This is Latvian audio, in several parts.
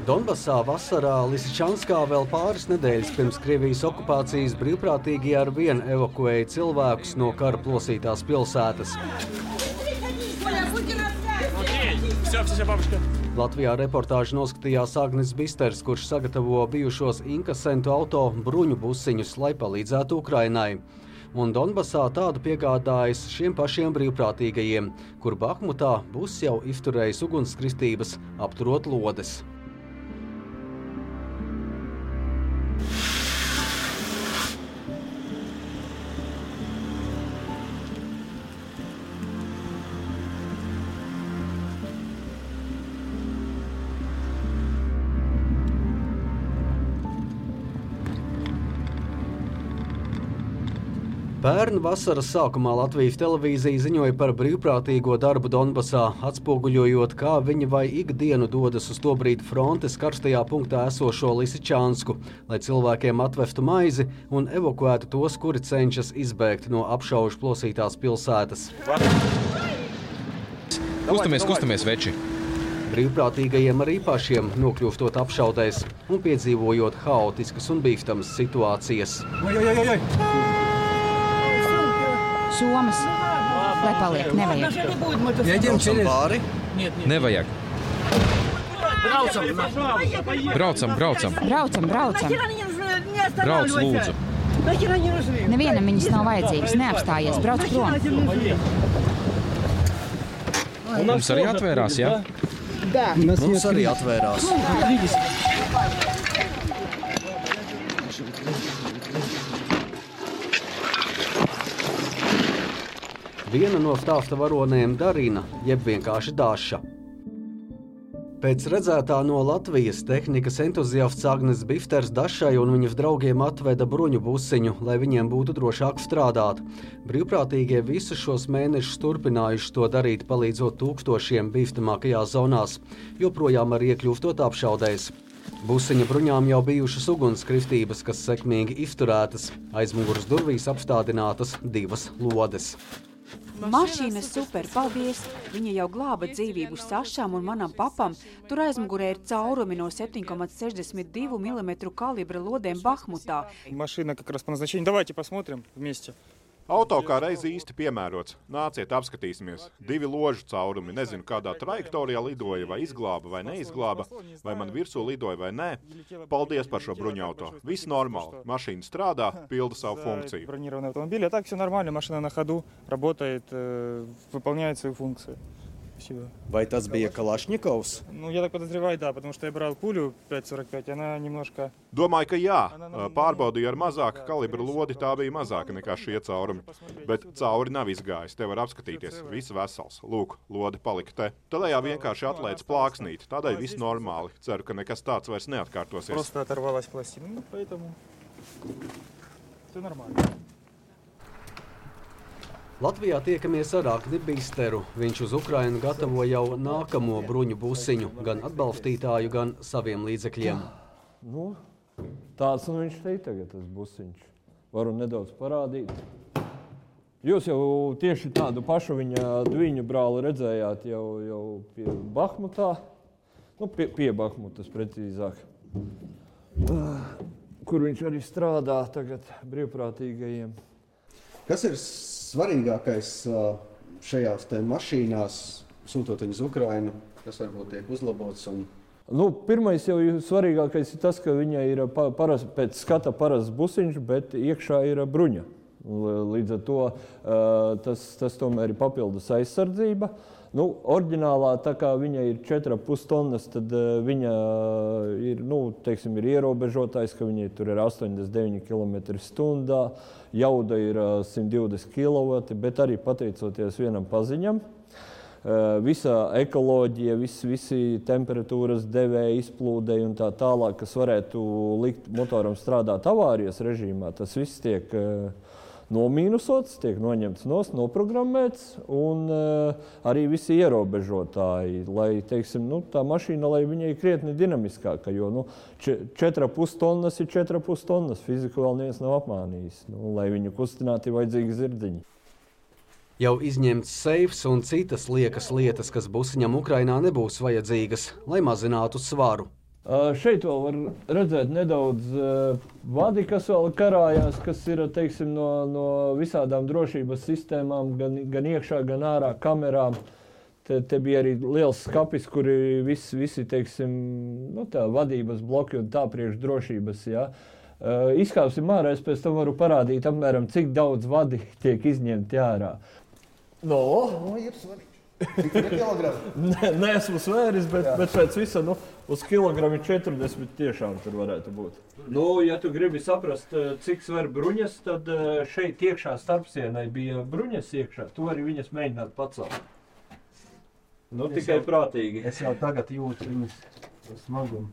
Donbasā vasarā Lisičanskā vēl pāris nedēļas pirms Krievijas okupācijas brīvprātīgie ar vienu evakuēja cilvēkus no kara plosītās pilsētas. Latvijā reportāžu noskatījās Agnes Bisters, kurš sagatavo bijušos inkasentu auto bruņu busiņus, lai palīdzētu Ukrainai. Un Donbasā tādu piegādājas šiem pašiem brīvprātīgajiem, kur Bahmutā bus jau izturējis ugunskristības, apturot lodes. Pērn vasaras sākumā Latvijas televīzija ziņoja par brīvprātīgo darbu Donbasā, atspoguļojot, kā viņi vai ikdienu dodas uz tobrīd frontes karstajā punktā esošo Lisičansku, lai cilvēkiem atvestu maizi un evakuētu tos, kuri cenšas izbēgt no apšaužu plosītās pilsētas. Kustamies, veči! Brīvprātīgajiem arī pašiem nokļūstot apšaudēs un piedzīvojot haotiskas un bīstamas situācijas. Somas, lai paliek, nevajag. Braucam pāri? Nevajag. Braucam. Brauc, lūdzu. Nevienam viņas nav vajadzīgas, neapstājies, brauc prom. Mums arī atvērās, jā? Mums arī atvērās. Viena no stāsta varonēm Darina, jeb vienkārši Daša. Pēc redzētā no Latvijas tehnikas entuziasts Agnes Bisters Dašai un viņas draugiem atveda bruņu busiņu, lai viņiem būtu drošāk strādāt. Brīvprātīgie visus šos mēnešus turpinājuši to darīt, palīdzot tūkstošiem bīstamākajās zonās, joprojām arī iekļūstot apšaudēs. Busiņa bruņām jau bijušas ugunskristības, kas sekmīgi izturētas. Aizmuguras durvīs apstādinātas 2 lodes. Mašīna super, paldies! Viņa jau glāba dzīvību Sašām un manam papam. Tur aizmugurē ir caurumi no 7,62 mm kalibra lodēm Bahmutā. Mašīna как раз по назначению. Давайте посмотрим вместе. Auto kā reizi īsti piemērots. Nāciet, apskatīsimies. 2 ložu caurumi. Nezinu, kādā trajektorijā lidoja, vai izglāba, vai neizglāba, vai man virsū lidoja, vai nē. Paldies par šo bruņauto. Viss normāli. Mašīna strādā, pilda savu funkciju. Бронированный автомобиль. А так все нормально. Машина на ходу, работает, выполняет свою функцию. Спасибо. Vai tas bija Kalašņikovs? Ну, я так подозреваю, да, потому что я брал пулю 5,45, она немножко... Domāju, ka jā. Pārbaudīju ar mazāku kalibru lodi, tā bija mazāka nekā šie caurumi. Bet cauri nav izgājis, te var apskatīties. Viss vesels. Lūk, lode palika te. Tādējā vienkārši atlēdz plāksnīt. Tādēļ viss normāli. Ceru, ka nekas tāds vairs neatkārtosies. Просто оторвалась пластина. Ну, поэтому... Все нормально. Latvijā tiekamies ar Agni Bisteru. Viņš uz Ukrainu gatavo jau nākamo bruņu busiņu, gan atbalstītāju, gan saviem līdzekļiem. Nu, tāds un viņš te tagad, tas busiņš. Varu nedaudz parādīt. Jūs jau tieši tādu pašu viņa dviņu brāli redzējāt jau pie Bahmutā. Nu, pie Bahmutas precīzāk. Kur viņš arī strādā tagad brīvprātīgajiem. Kas ir svarīgākais šajās te mašīnās, sūtot viņus uz Ukrainu, kas varbūt tiek uzlabots? Nu, pirmais jau svarīgākais ir tas, ka viņai ir pēc skata parasts busiņš, bet iekšā ir bruņa. Līdz ar to tas tomēr ir papildus aizsardzība. Nu, oriģinālā, tā kā viņa ir 4,5 tonnas, tad viņa ir, teiksim, ir ierobežotājs, ka viņai tur ir 89 km/h, jauda ir 120 kW, bet arī pateicoties vienam paziņam. Visa ekoloģija, visi temperatūras devēji, izplūdēji un tā tālāk, kas varētu likt motoram strādāt avārijas režīmā, tas viss tiek nomīnusots, tiek noņemts nost, noprogrammēts, un arī visi ierobežotāji, lai, teiksim, tā mašīna, lai viņai krietni dinamiskāka, jo 4,5 tonnas ir 4,5 tonnas, fiziku vēl neviens nav apmānījis, lai viņu kustinātu ir vajadzīgi zirdziņi. Jau izņemts seifs un citas liekas lietas, kas busiņam Ukrainā nebūs vajadzīgas, lai mazinātu svaru. Šeit vēl var redzēt nedaudz vadi, kas vēl karājās, kas ir, teiksim, no visādām drošības sistēmām, gan iekšā, gan ārā kamerām. Te bija arī liels skapis, kuri visi teiksim, tā vadības bloki un tā priekš drošības, jā. Izkāpsim ārā, es pēc tam varu parādīt apmēram, cik daudz vadi tiek izņemti ārā. Ir svarīgi. Cik ir kilogrami? Neesmu svēris, bet pēc visa, uz kilogrami 40 tiešām tur varētu būt. Ja tu gribi saprast, cik sver bruņas, tad šeit iekšā starpsienai bija bruņas iekšā. Tu vari viņas mēģināt pacelt. Tikai prātīgi. Es jau tagad jūtu viņas smagumu.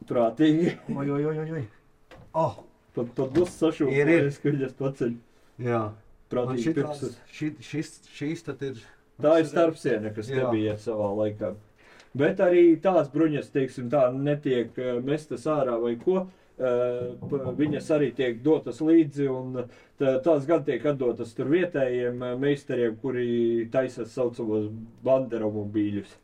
Prātīgi. Oj. Tad būs sašūpājies, ka viņas paceļ. Jā. Prātīgi pirksus. Šīs tad ir... Tā ir starpsiena, kas te bija savā laikā. Bet arī tās bruņas, teiksim, tā netiek mestas ārā vai ko. Viņas arī tiek dotas līdzi un tās gan tiek atdotas tur vietējiem meistariem, kuri taisa saucamos banderomobīļus.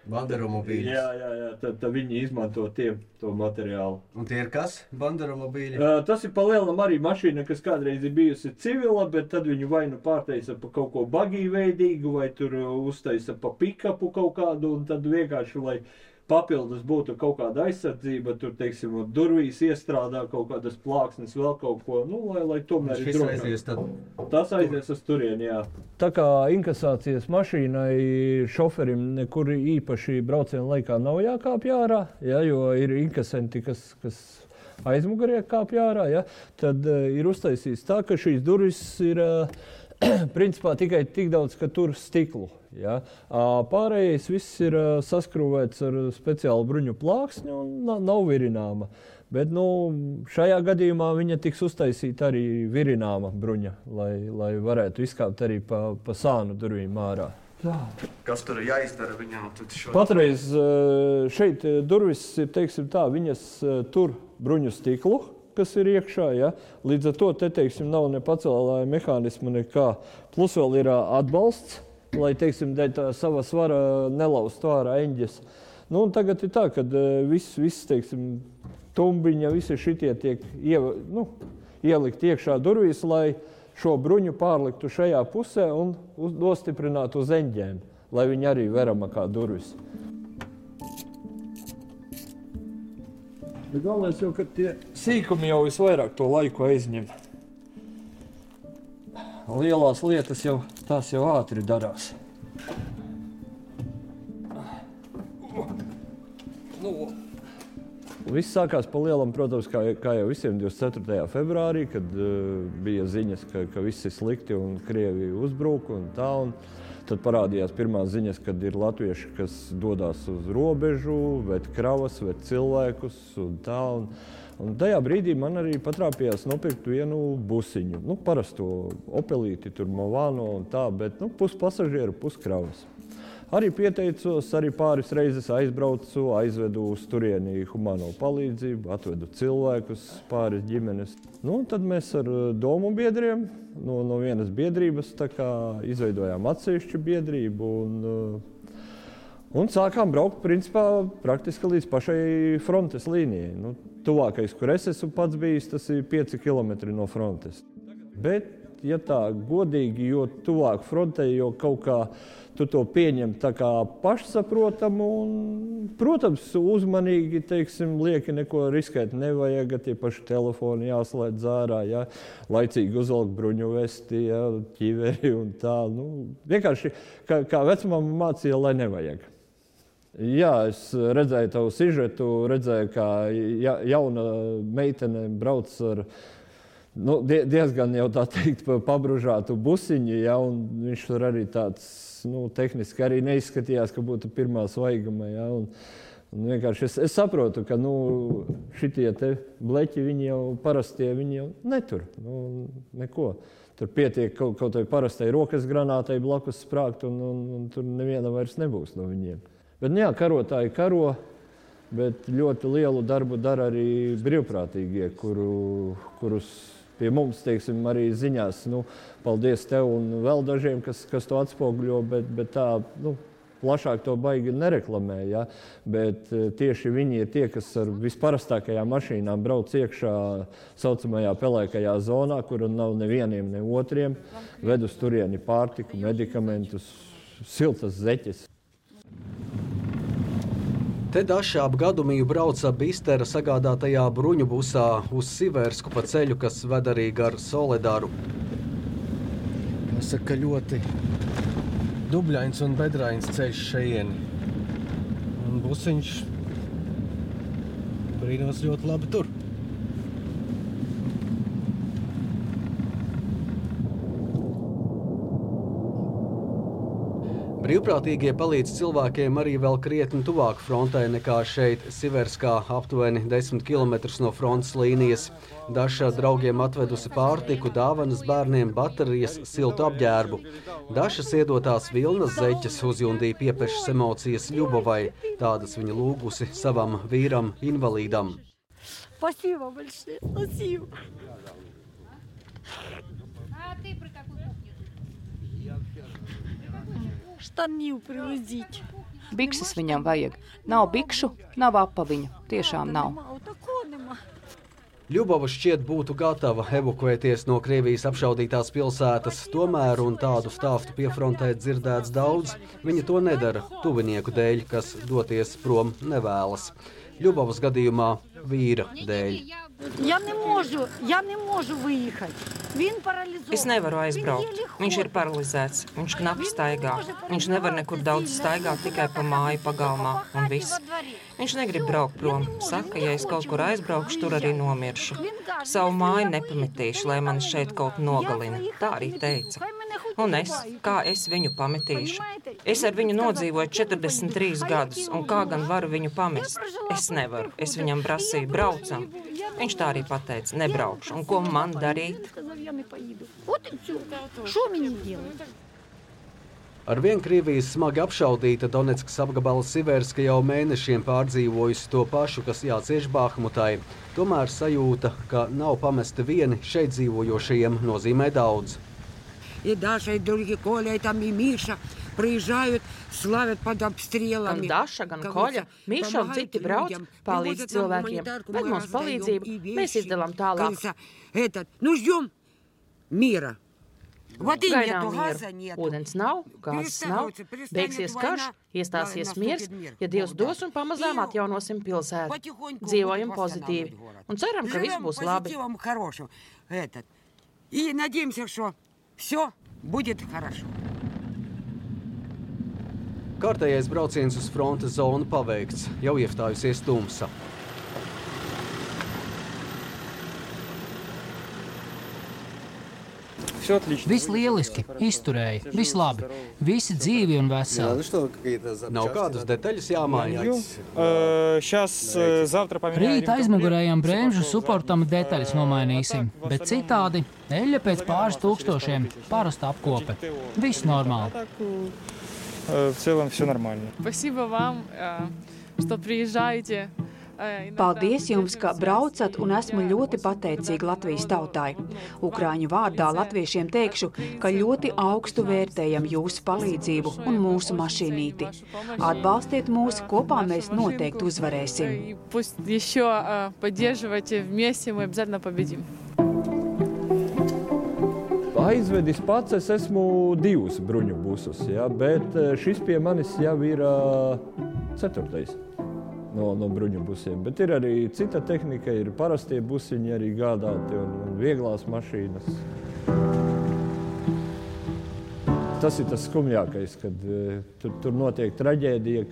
Banderomobīļus? Jā, tad viņi izmanto to materiālu. Un tie ir kas? Banderomobīļi? Tas ir palielinam arī mašīna, kas kādreiz ir bijusi civila, bet tad viņu vai nu pārtaisa pa kaut ko bagīveidīgu, vai tur uztaisa pa pikapu kaut kādu, un tad vienkārši, lai papildus būtu kaut kāda aizsardzība, tur, teiksim, durvīs iestrādā kaut kādas plāksnes, vēl kaut ko, lai tomēr ir drošāk. Tas aizies uz turieni, jā. Tā kā inkasācijas mašīnai šoferim nekur īpaši brauciena laikā nav jākāpj ārā, jo ir inkasenti, kas aizmugurē kāpj ārā, tad ir uztaisīts tā, ka šīs durvis ir principā tikai tik daudz, ka tur stiklu. Ja? Pārējais viss ir saskrūvēts ar speciālu bruņu plāksni un nav virināma. Bet šajā gadījumā viņa tiks uztaisīta arī virināma bruņa, lai varētu izkāpt arī pa sānu durvīm ārā. Tā. Kas tur jāizdara viņām? Patreiz šeit durvis ir, teiksim tā, viņas tur bruņu stiklu, kas ir iekšā, ja? Līdz ar to te, teiksim, nav ne pacēlāja mehānismu nekā. Plus vēl ir atbalsts, lai, teiksim, dēļ tā sava svara nelaustu ārā eņģes. Un tagad ir tā, kad viss, teiksim, tumbiņa, visi šitie tiek ielikt iekšā durvīs, lai šo bruņu pārliktu šajā pusē un nostiprinātu uz eņģēm, lai viņi arī verama kā durvis. Bet galvenais jau, ka tie sīkumi jau visvairāk to laiku aizņem. Lielās lietas jau, tās jau ātri darās. Viss sākās pa lielam, protams, kā jau visiem 24. februārī, kad bija ziņas, ka viss ir slikti un Krievi uzbruk un tā. Un tad parādījās pirmās ziņas, kad ir latvieši, kas dodās uz robežu, ved kravas, ved cilvēkus un tā. Un tajā brīdī man arī patrāpījās nopirkt vienu busiņu. Parasto Opelīti, tur Movano un tā, bet pus pasažieru, pus kravas. Arī pieteicos, arī pāris reizes aizbraucu, aizvedu uz turieni humāno palīdzību, atvedu cilvēkus, pāris ģimenes. Tad mēs ar domu biedriem no vienas biedrības tā kā izveidojām atsevišķu biedrību un sākām braukt principā praktiski līdz pašai frontes līnijai. Tuvākais, kur es esmu pats bijis, tas ir 5 kilometri no frontes. Bet, ja tā godīgi, jo tuvāk frontei, jo kaut kā tu to pieņem tā kā pašsaprotamu un, protams, uzmanīgi, teiksim, lieki neko riskēt nevajag, tie paši telefoni jāslēdz ārā, laicīgi uzvelk bruņu vesti, ķiveri un tā. Vienkārši, kā vecmama mācīja, lai nevajag. Jā, es redzēju tavu sižetu, redzēju, kā jauna meitene brauc ar diezgan jau tā teikt pabružātu busiņu, un viņš tur arī tāds, tehniski arī neizskatījās, ka būtu pirmā svaiguma, un vienkārši es saprotu, ka, šitie te bleķi, viņi jau parastie, viņi jau netur, neko. Tur pietiek kaut vai parastai rokas granātai blakus sprākt, un tur neviena vairs nebūs no viņiem. Bet, karotāji karo, bet ļoti lielu darbu dara arī brīvprātīgie, kurus pie mums, teiksim, arī ziņās. Paldies tev un vēl dažiem, kas to atspoguļo, bet tā, plašāk to baigi nereklamē, ja? Bet tieši viņi ir tie, kas ar visparastākajām mašīnām brauc iekšā saucamajā pelēkajā zonā, kur nav nevieniem, ne otriem, ved uz turieni pārtiku, medikamentus, siltas zeķes. Te Daša ap Gadumiju brauca Bistera sagādātajā bruņu busā uz Siversku pa ceļu, kas ved arī gar Soledaru. Jāsaka, ļoti dubļains un bedrains ceļš šejieni. Un busiņš brīnos ļoti labi tur. Brīvprātīgie palīdz cilvēkiem arī vēl krietni tuvāk frontē nekā šeit Siverskā, aptuveni 10 km no frontes līnijas. Daša draugiem atvedusi pārtiku, dāvanas bērniem, baterijas, siltu apģērbu. Dašas iedotās vilnas zeķes uzjundīja piepešas emocijas Ļubovai. Tādas viņa lūgusi savam vīram invalīdam. Спасибо большое, спасибо. Штанів привезіть. Bikses viņam vajag. Nav bikšu, nav apaviņu. Tiešām nav. Ļubova šķiet būtu gatava evakuēties no Krievijas apšaudītās pilsētas, tomēr un tādu stāstu piefrontē dzirdēts daudz. Viņa to nedara tuvinieku dēļ, kas doties prom nevēlas. Ļubovas gadījumā vīra dēļ. Я не можу виїхати. Він паралізований. Es nevaru aizbraukt. Viņš ir paralizēts. Viņš knapi staigā. Viņš nevar nekur daudz staigāt, tikai pa māju pagalmā un viss. Viņš negrib braukt prom. Saka, ja es kaut kur aizbraukšu, tur arī nomiršu. Savu māju nepametīšu, lai mani šeit kaut nogalina. Tā arī teica. Un kā es viņu pametīšu? Es ar viņu nodzīvoju 43 gadus, un kā gan varu viņu pamest? Es nevaru. Es viņam prasīju, braucam. Viņš tā arī pateica, nebraukšu. Un ko man darīt? Arvien Krievijas smagi apšaudīta Donetskas apgabala Siverska jau mēnešiem pārdzīvojusi to pašu, kas jācieš Bahmutai. Tomēr sajūta, ka nav pamesti vieni šeit dzīvojošajiem, nozīmē daudz. И Даша, и другие, Коля, и там и Миша приезжают, славят под обстрелами. Gan Daša, gan Koļa, Miša un citi brauc, palīdz cilvēkiem, ved mums palīdzību, mēs izdalām tālāk. Ну, ждем мира. Gaidām mieru. Ūdens nav, gāzes nav, beigsies karš, iestāsies miers, ja Dievs dos un pamazām atjaunosim pilsētu. Dzīvojam pozitīvi un ceram, ka viss būs labi. И надеемся, что все будет хорошо. Kārtējais brauciens uz frontes zonu paveikts, jau iestājusies tumsa. Viss lieliski, izturēja, viss labi, visi dzīvi un veseli. Nav kādas detaļas jāmaiņas. Rīt aizmugurējām bremžu suportam detaļas nomainīsim, bet citādi eļļa pēc pāris tūkstošiem, parasta apkope. Viss normāli. В целом все нормально. Спасибо вам, что приезжаете. Paldies jums, ka braucat, un esmu ļoti pateicīga Latvijas tautai. Ukrāņu vārdā latviešiem teikšu, ka ļoti augstu vērtējam jūsu palīdzību un mūsu mašīnīti. Atbalstiet mūs, kopā mēs noteikti uzvarēsim. Пусть еще поддерживайте, вместе мы обязательно победим. Aizvedis pats es esmu 2 bruņu busus, ja, bet šis pie manis jau ir 4. No bruņu busiem. Bet ir arī cita tehnika, ir parastie busiņi arī gādāti un vieglās mašīnas. Tas ir tas skumjākais, kad tur notiek traģēdija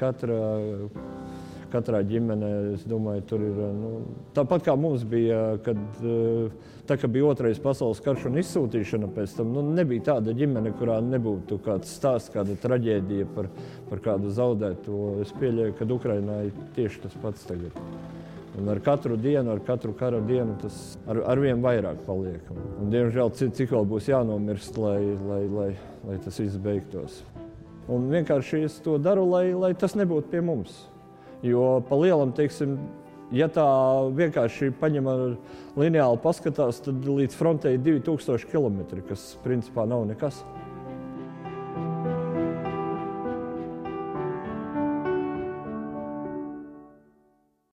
katrā ģimenē. Es domāju, tur ir, tāpat kā mums bija, kad bija 2. pasaules karš un izsūtīšana pēc tam, nebija tāda ģimene, kurā nebūtu kāds stāsts, kāda traģēdija par kādu zaudēto. Es pieļauju, ka Ukrainā ir tieši tas pats tagad. Un ar katru dienu, ar katru kara dienu tas arvien vairāk paliek. Un diemžēl cik vēl būs jānomirst, lai tas viss beigtos. Un vienkārši es to daru, lai tas nebūtu pie mums. Jo pa lielam, teiksim, Ja tā vienkārši paņem ar lineāli paskatās, tad līdz frontei 2000 km, kas principā nav nekas.